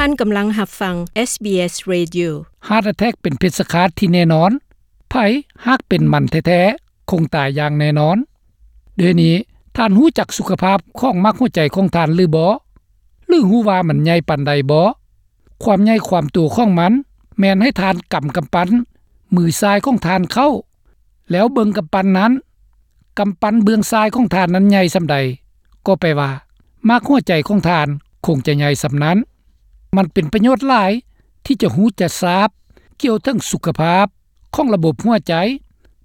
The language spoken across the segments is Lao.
ທ່ານກຳລັງຮັບຟັງ ເອສບີເອສ Radio. Heart attack ເປັນເພດສະຄາດທີ່ແນ່ນອນ. ໃຜຫາກເປັນມັນແທ້ໆ ຄົງຕາຍຢ່າງແນ່ນອນ. ດຽວນີ້ທ່ານຮູ້ຈັກສຸຂະພາບຂອງໝາກຫົວໃຈຂອງທ່ານຫຼືບໍ່? ຫຼືຮູ້ວ່າມັນໃຫຍ່ປານໃດບໍ່? ຄວາມໃຫຍ່ຄວາມໂຕຂອງມັນແມ່ນໃຫ້ທ່ານກຳກຳປັ້ນມືຊ້າຍຂອງທ່ານເຂົ້າ ແລ້ວເບິ່ງກຳປັ້ນນັ້ນ. ກຳປັ້ນເບື້ອງຊ້າຍຂອງທ່ານນັ້ນໃຫຍ່ສ່ຳໃດ, ກໍແປວ່າໝາກຫົວໃຈຂອງທ່ານຄົງຈະໃຫຍ່ສ່ຳນັ້ນ. ມັນເປັນປະໂຫຍດຫຼາຍທີ່ຈະຮູ້ຈະຊາບກ່ຽວເຖິງສຸຂະພາບຂອງລະບົບຫົວໃຈ,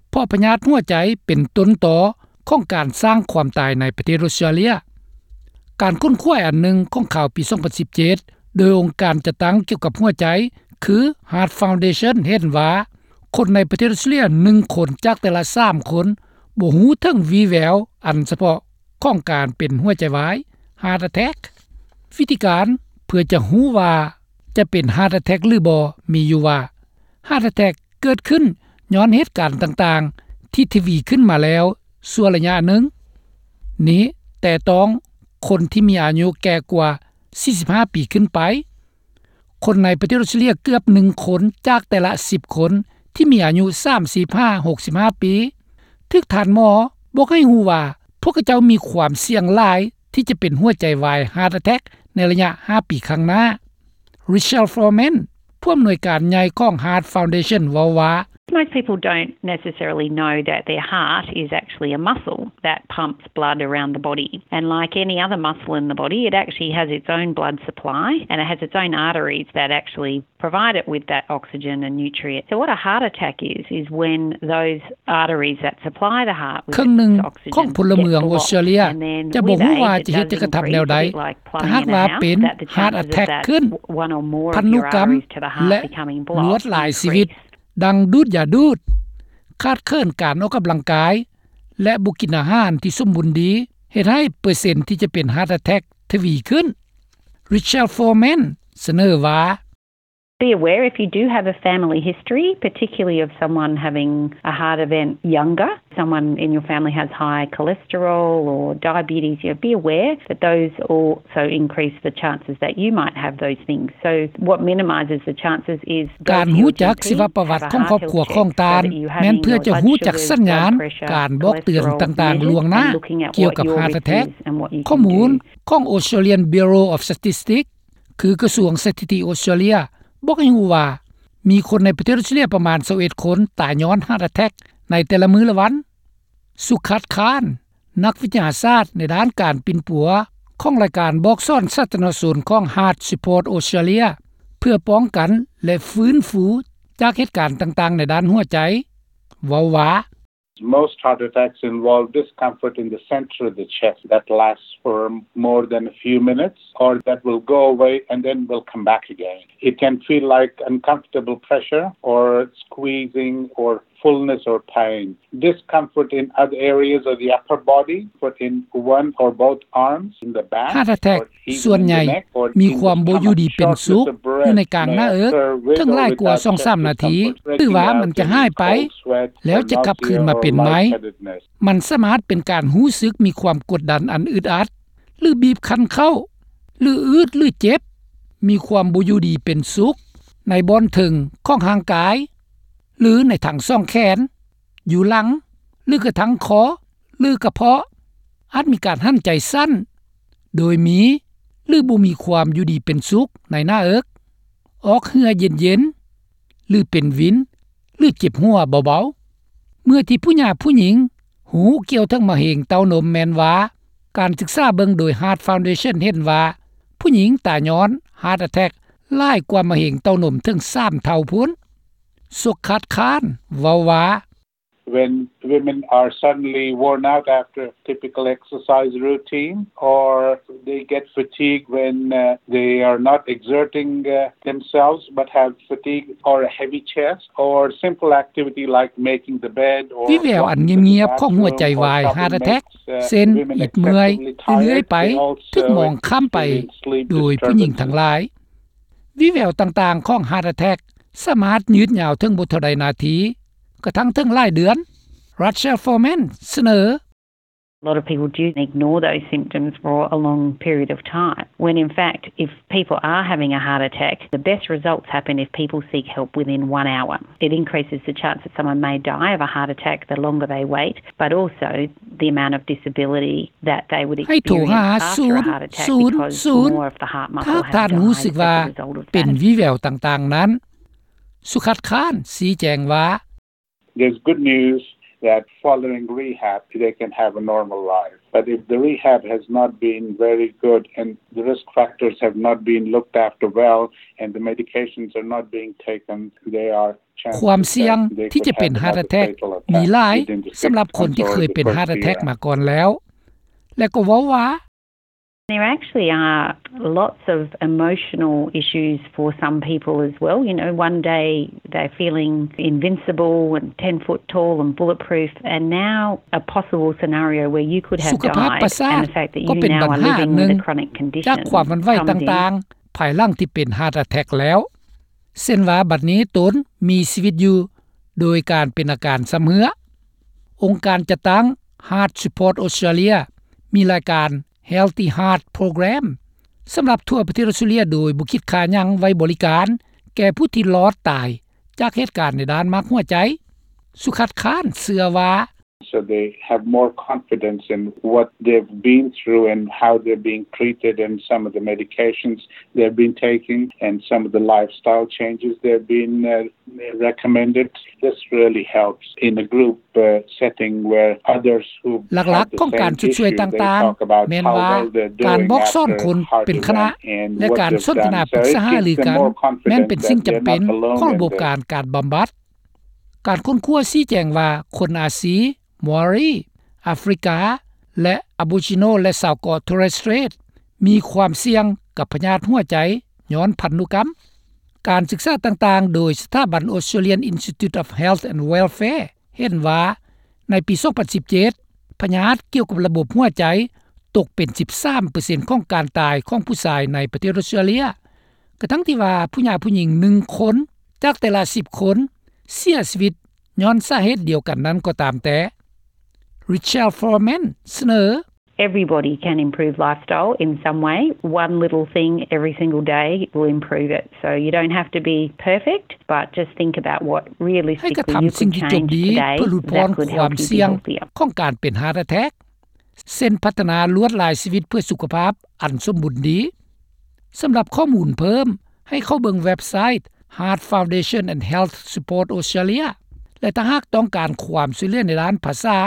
ເພາະພະຍາດຫົວໃຈເປັນຕົ້ນຕໍຂອງການສ້າງຄວາມຕາຍໃນປະເທດອົດສະຕຣາເລຍ. ການຄົ້ນຄວ້າອັນໜຶ່ງຂອງຂ່າວປີສອງພັນສິບເຈັດ ໂດຍອົງການຈັດຕັ້ງກ່ຽວກັບຫົວໃຈ ຄື Heart Foundation ເຫັນວ່າ ຄົນໃນປະເທດອົດສະຕຣາເລຍໜຶ່ງຄົນຈາກແຕ່ລະສາມຄົນ ບໍ່ຮູ້ເຖິງວີ່ແວວອັນສະເພາະຂອງການເປັນຫົວໃຈວາຍ Heart Attack. ວິທີການເພື່ອຈະຮູ້ວ່າຈະເປັນ Heart Attack ຫຼືບໍ່ ມີຢູ່ວ່າ Heart Attack ເກີດຂຶ້ນຍ້ອນເຫດການຕ່າງໆທີ່ທະວີຂຶ້ນມາແລ້ວຊົ່ວໄລຍະໜຶ່ງ. ນີ້ແຕ່ຕ້ອງຄົນທີ່ມີອາຍຸແກ່ກວ່າສີ່ສິບຫ້າປີຂຶ້ນໄປ. ຄົນໃນປະເທດອົດສະຕຣາເລຍເກືອບໜຶ່ງຄົນຈາກແຕ່ລະສິບຄົນທີ່ມີອາຍຸສາມສິບຫາຫົກສິບຫ້າປີ ຖືກທ່ານໝໍບອກໃຫ້ຮູ້ວ່າ ພວກເຂົາເຈົ້າມີຄວາມສ່ຽງຫຼາຍທີ່ຈະເປັນຫົວໃຈວາຍ Heart Attack ໃນໄລຍະຫ້າປີຂ້າງໜ້າ. Richelle Foreman ຜູ້ອຳນວຍການໃຫຍ່ຂອງ Heart Foundation ເວົ້າວ່າ, Most people don't necessarily know that their heart is actually a muscle that pumps blood around the body. And like any other muscle in the body, it actually has its own blood supply and it has its own arteries that actually provide it with that oxygen and nutrient. So what a heart attack is, is when those arteries that supply the heart with its oxygen get blocked. ເຄິ່ງໜຶ່ງຂອງພົນລະເມືອງອົດສະຕຣາເລຍຈະບໍ່ຮູ້ວ່າຈະເຮັດຈັກກະທຳແນວໃດ ຖ້າຫາກວ່າເປັນ Heart Attack ຂຶ້ນ. ພັນທຸກຳ ແລະ ລວດລາຍຊີວິດ ດັ່ງດູດຢາດູດ, ຂາດເຂີນການອອກກຳລັງກາຍ ແລະ ບໍ່ກິນອາຫານທີ່ສົມບູນດີ ເຮັດໃຫ້ເປີເຊັນທີ່ຈະເປັນ Heart Attack ທະວີຂຶ້ນ. Richelle Foreman ສະເໜີວ່າ, Be aware if you do have a family history, particularly of someone having a heart event younger, someone in your family has high cholesterol or diabetes, you know, be aware that those also increase the chances that you might have those things. So what minimises the chances is ການຮູ້ຈັກຊີວະປະຫວັດຂອງຄອບຄົວຂອງທ່ານ ແມ່ນເພື່ອຈະຮູ້ຈັກສັນຍານການບອກເຕືອນຕ່າງໆລ່ວງໜ້າກ່ຽວກັບ Heart Attack. ຂໍ້ມູນຂອງ Australian Bureau of Statistics ຄືກະຊວງສະຖິຕິອົດສະຕຣາເລຍ ບອກໃຫ້ຮູ້ວ່າ ມີຄົນໃນປະເທດອົດສະຕຣາເລຍປະມານຊາວເອັດຄົນຕາຍຍ້ອນ Heart Attack ໃນແຕ່ລະມື້ລະວັນ. ສຸຂັດ ຄານ ນັກວິທະຍາສາດໃນດ້ານການປິ່ນປົວຂອງລາຍການບອກສອນສາທາລະນະຊົນຂອງ Heart Support Australia ເພື່ອປ້ອງກັນ ແລະ ຟື້ນຟູຈາກເຫດການຕ່າງໆໃນດ້ານຫົວໃຈ ເວົ້າວ່າ, Most heart attacks involve discomfort in the center of the chest that lasts for more than a few minutes or that will go away and then will come back again. It can feel like uncomfortable pressure or squeezing or fullness or pain. Discomfort in other areas of the upper body, but in one or both arms, in the back, Heart Attack ສ່ວນໃຫຍ່ມີຄວາມບໍ່ຢູ່ດີເປັນສຸກຢູ່ໃນກາງໜ້າເອິກ ເຖິງຫຼາຍກວ່າສອງສາມນາທີ ຫຼືວ່າມັນຈະຫາຍໄປ ແລ້ວຈະກັບຄືນມາເປັນໃໝ່. ມັນສາມາດເປັນການຮູ້ສຶກມີຄວາມກົດດັນອັນອຶດອັດ ຫຼື ບີບຄັນເຂົ້າ ຫຼື ອືດ ຫຼື ເຈັບ, ມີຄວາມບໍ່ຢູ່ດີເປັນສຸກໃນບ່ອນເທິງຂອງຮ່າງກາຍ ຫຼື ໃນທັງສອງແຂນ, ຢູ່ຫຼັງ ຫຼື ກະທັ້ງຄໍ ຫຼື ກະເພາະ, ອາດມີການຫັນໃຈສັ້ນ ໂດຍມີ ຫຼື ບໍ່ມີຄວາມຢູ່ດີເປັນສຸກໃນໜ້າເອິກ, ອອກເຫື່ອເຢັນໆ ຫຼື ເປັນວິນ ຫຼື ເຈັບຫົວເບົາໆ. ເມື່ອທີ່ຜູ້ຍາຜູ້ຍິງຮູ້ກ່ຽວເຖິງມະເຮັງເຕົ້ານົມແມ່ນວ່າ ການສຶກສາເບິ່ງໂດຍ Heart Foundation ເຫັນວ່າ ຜູ້ຍິງຕາຍຍ້ອນ Heart Attack ຫຼາຍກວ່າມະເຮັງເຕົ້ານົມເຖິງສາມເທົ່າພຸ້ນ. ສົກຄາດຄານ ເວົ້າວ່າ, When women are suddenly worn out after a typical exercise routine, or they get fatigued when, uh, they are not exerting, uh, themselves but have fatigue or a heavy chest, or simple activity like making the bed or ວິແວວອັນງຽບໆຂອງຫົວໃຈວາຍ Heart Attack ເຊັ່ນ ອິດເມື່ອຍເລື້ອຍໆໄປ ຖືກມອງຂ້າມໄປໂດຍຜູ້ຍິງທັງຫຼາຍ. ວິແວວຕ່າງໆຂອງ Heart Attack ສາມາດຍືດຍາວເຖິງບໍ່ເທົ່າໃດນາທີ, ກະທັ່ງເຖິງຫຼາຍເດືອນ. Rachel Foreman ສະເໜີ. A lot of people do ignore those symptoms for a long period of time, when in fact, if people are having a heart attack, the best results happen if people seek help within one hour. It increases the chance that someone may die of a heart attack the longer they wait, but also the amount of disability that they would experience after a heart attack, because more of the heart muscle dies as a result of that. ໃຫ້ໂທຫາສູນສູນ ຖ້າທ່ານຮູ້ສຶກວ່າເປັນວີແວວຕ່າງໆນັ້ນ. ສຸຂັດ ຄານ ຊີ້ແຈງວ່າ There's good news that following rehab, they can have a normal life. But if the rehab has not been very good and the risk factors have not been looked after well and the medications are not being taken, they are ຄວາມສ່ຽງທີ່ຈະເປັນ heart attack ມີຫຼາຍສຳລັບຄົນທີ່ເຄີຍເປັນ heart attack ມາກ່ອນແລ້ວ ແລະກໍເວົ້າວ່າ There actually are lots of emotional issues for some people as well. You know, one day they're feeling invincible and ten foot tall and bulletproof, and now a possible scenario where you could have died, and the fact that you now are living with a chronic condition comes in. ສຸຂະພາບປະສາດກໍເປັນບັນຫາໜຶ່ງຈາກຄວາມຫວັ່ນໄຫວຕ່າງໆ ພາຍຫຼັງທີ່ເປັນ heart attack ແລ້ວ ເຊັ່ນວ່າບັດນີ້ຕົນມີຊີວິດຢູ່ໂດຍການເປັນອາການຊຳເຮື້ອ. ອົງການຈັດຕັ້ງ Heart Support Australia ມີລາຍການ Healthy Heart Program ສຳລັບທົ່ວປະເທດອອສເຕຣເລັຽ ໂດຍບໍ່ຄິດຄ່າຫຍັງໄວ້ບໍລິການແກ່ຜູ້ທີ່ລອດຕາຍຈາກເຫດການໃນດ້ານໝາກຫົວໃຈ. ສຸຂັດ ຄານ ເຊື່ອວ່າ So they have more confidence in what they've been through and how they're being treated and some of the medications they've been taking and some of the lifestyle changes they've been, uh, recommended. This really helps in a group, uh, setting where others who have the same issue, they talk about how well they're doing after heart event and what they've done. ຫຼັກໆຂອງການຊົດຊ່ວຍຕ່າງໆ ແມ່ນວ່າການບອກສອນຄົນເປັນຄະນະ ແລະການສົນທະນາປຶກສາຫາລືກັນ ແມ່ນເປັນສິ່ງຈຳເປັນຂອງລະບົບການ ການບຳບັດ. ການຄົ້ນຄວ້າຊີ້ແຈງວ່າ ຄົນອາຊີ, ມາວຣີ, ອາຟຣິກາ ແລະ ອາໂບຣິຈິໂນ ແລະ ຊາວເກາະ Torres Strait ມີຄວາມສ່ຽງກັບພະຍາດຫົວໃຈຍ້ອນພັນທຸກຳ. ການສຶກສາຕ່າງໆ ໂດຍສະຖາບັນ Australian Institute of Health and Welfare ເຫັນວ່າ ໃນປີສອງພັນສິບເຈັດ ພະຍາດກ່ຽວກັບລະບົບຫົວໃຈຕົກເປັນສິບສາມເປີເຊັນຂອງການຕາຍຂອງຜູ້ຊາຍໃນປະເທດອອສເຕຣເລັຽ ກະທັ່ງທີ່ວ່າຜູ້ຍາຜູ້ຍິງໜຶ່ງຄົນຈາກແຕ່ລະສິບຄົນເສຍຊີວິດຍ້ອນສາເຫດດຽວກັນນັ້ນກໍຕາມແຕ່. Richelle Foreman ສະເໜີ Everybody can improve lifestyle in some way. One little thing every single day will improve it. So you don't have to be perfect, but just think about what realistically you could change today that could help you be healthier. ໃຫ້ກະທຳສິ່ງທີ່ຈົບດີເພື່ອຫຼຸດຜ່ອນຄວາມສ່ຽງຂອງການເປັນ heart attack ເຊັ່ນ ພັດທະນາລວດລາຍຊີວິດເພື່ອສຸຂະພາບອັນສົມບູນດີ. ສຳລັບຂໍ້ມູນເພີ່ມ ໃຫ້ເຂົ້າເບິ່ງເວັບໄຊ Heart Foundation and Health Support Australia ແລະ ຖ້າຫາກຕ້ອງການຄວາມຊ່ວຍເຫຼືອໃນດ້ານພາສາ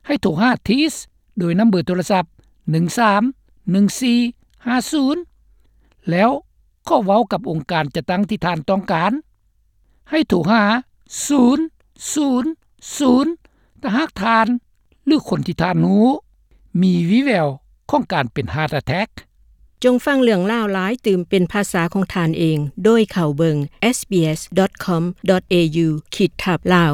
ໃຫ້ໂທຫາ Tees ໂດຍນຳເບີໂທລະສັບ ໜຶ່ງສາມໜຶ່ງສີ່ຫ້າສູນ ແລ້ວຂໍເວົ້າກັບອົງການຈັດຕັ້ງທີ່ທ່ານຕ້ອງການ. ໃຫ້ໂທຫາ ສູນສູນສູນ ຖ້າຫາກທ່ານ ຫຼື ຄົນທີ່ທ່ານຮູ້ ມີວີແວວຂອງການເປັນ heart attack. ຈົ່ງຟັງເລື່ອງລາວຫຼາຍຕື່ມເປັນພາສາຂອງທ່ານເອງ ໂດຍເຂົ້າເບິ່ງ sbs.com.au ຂີດທັບ Lao.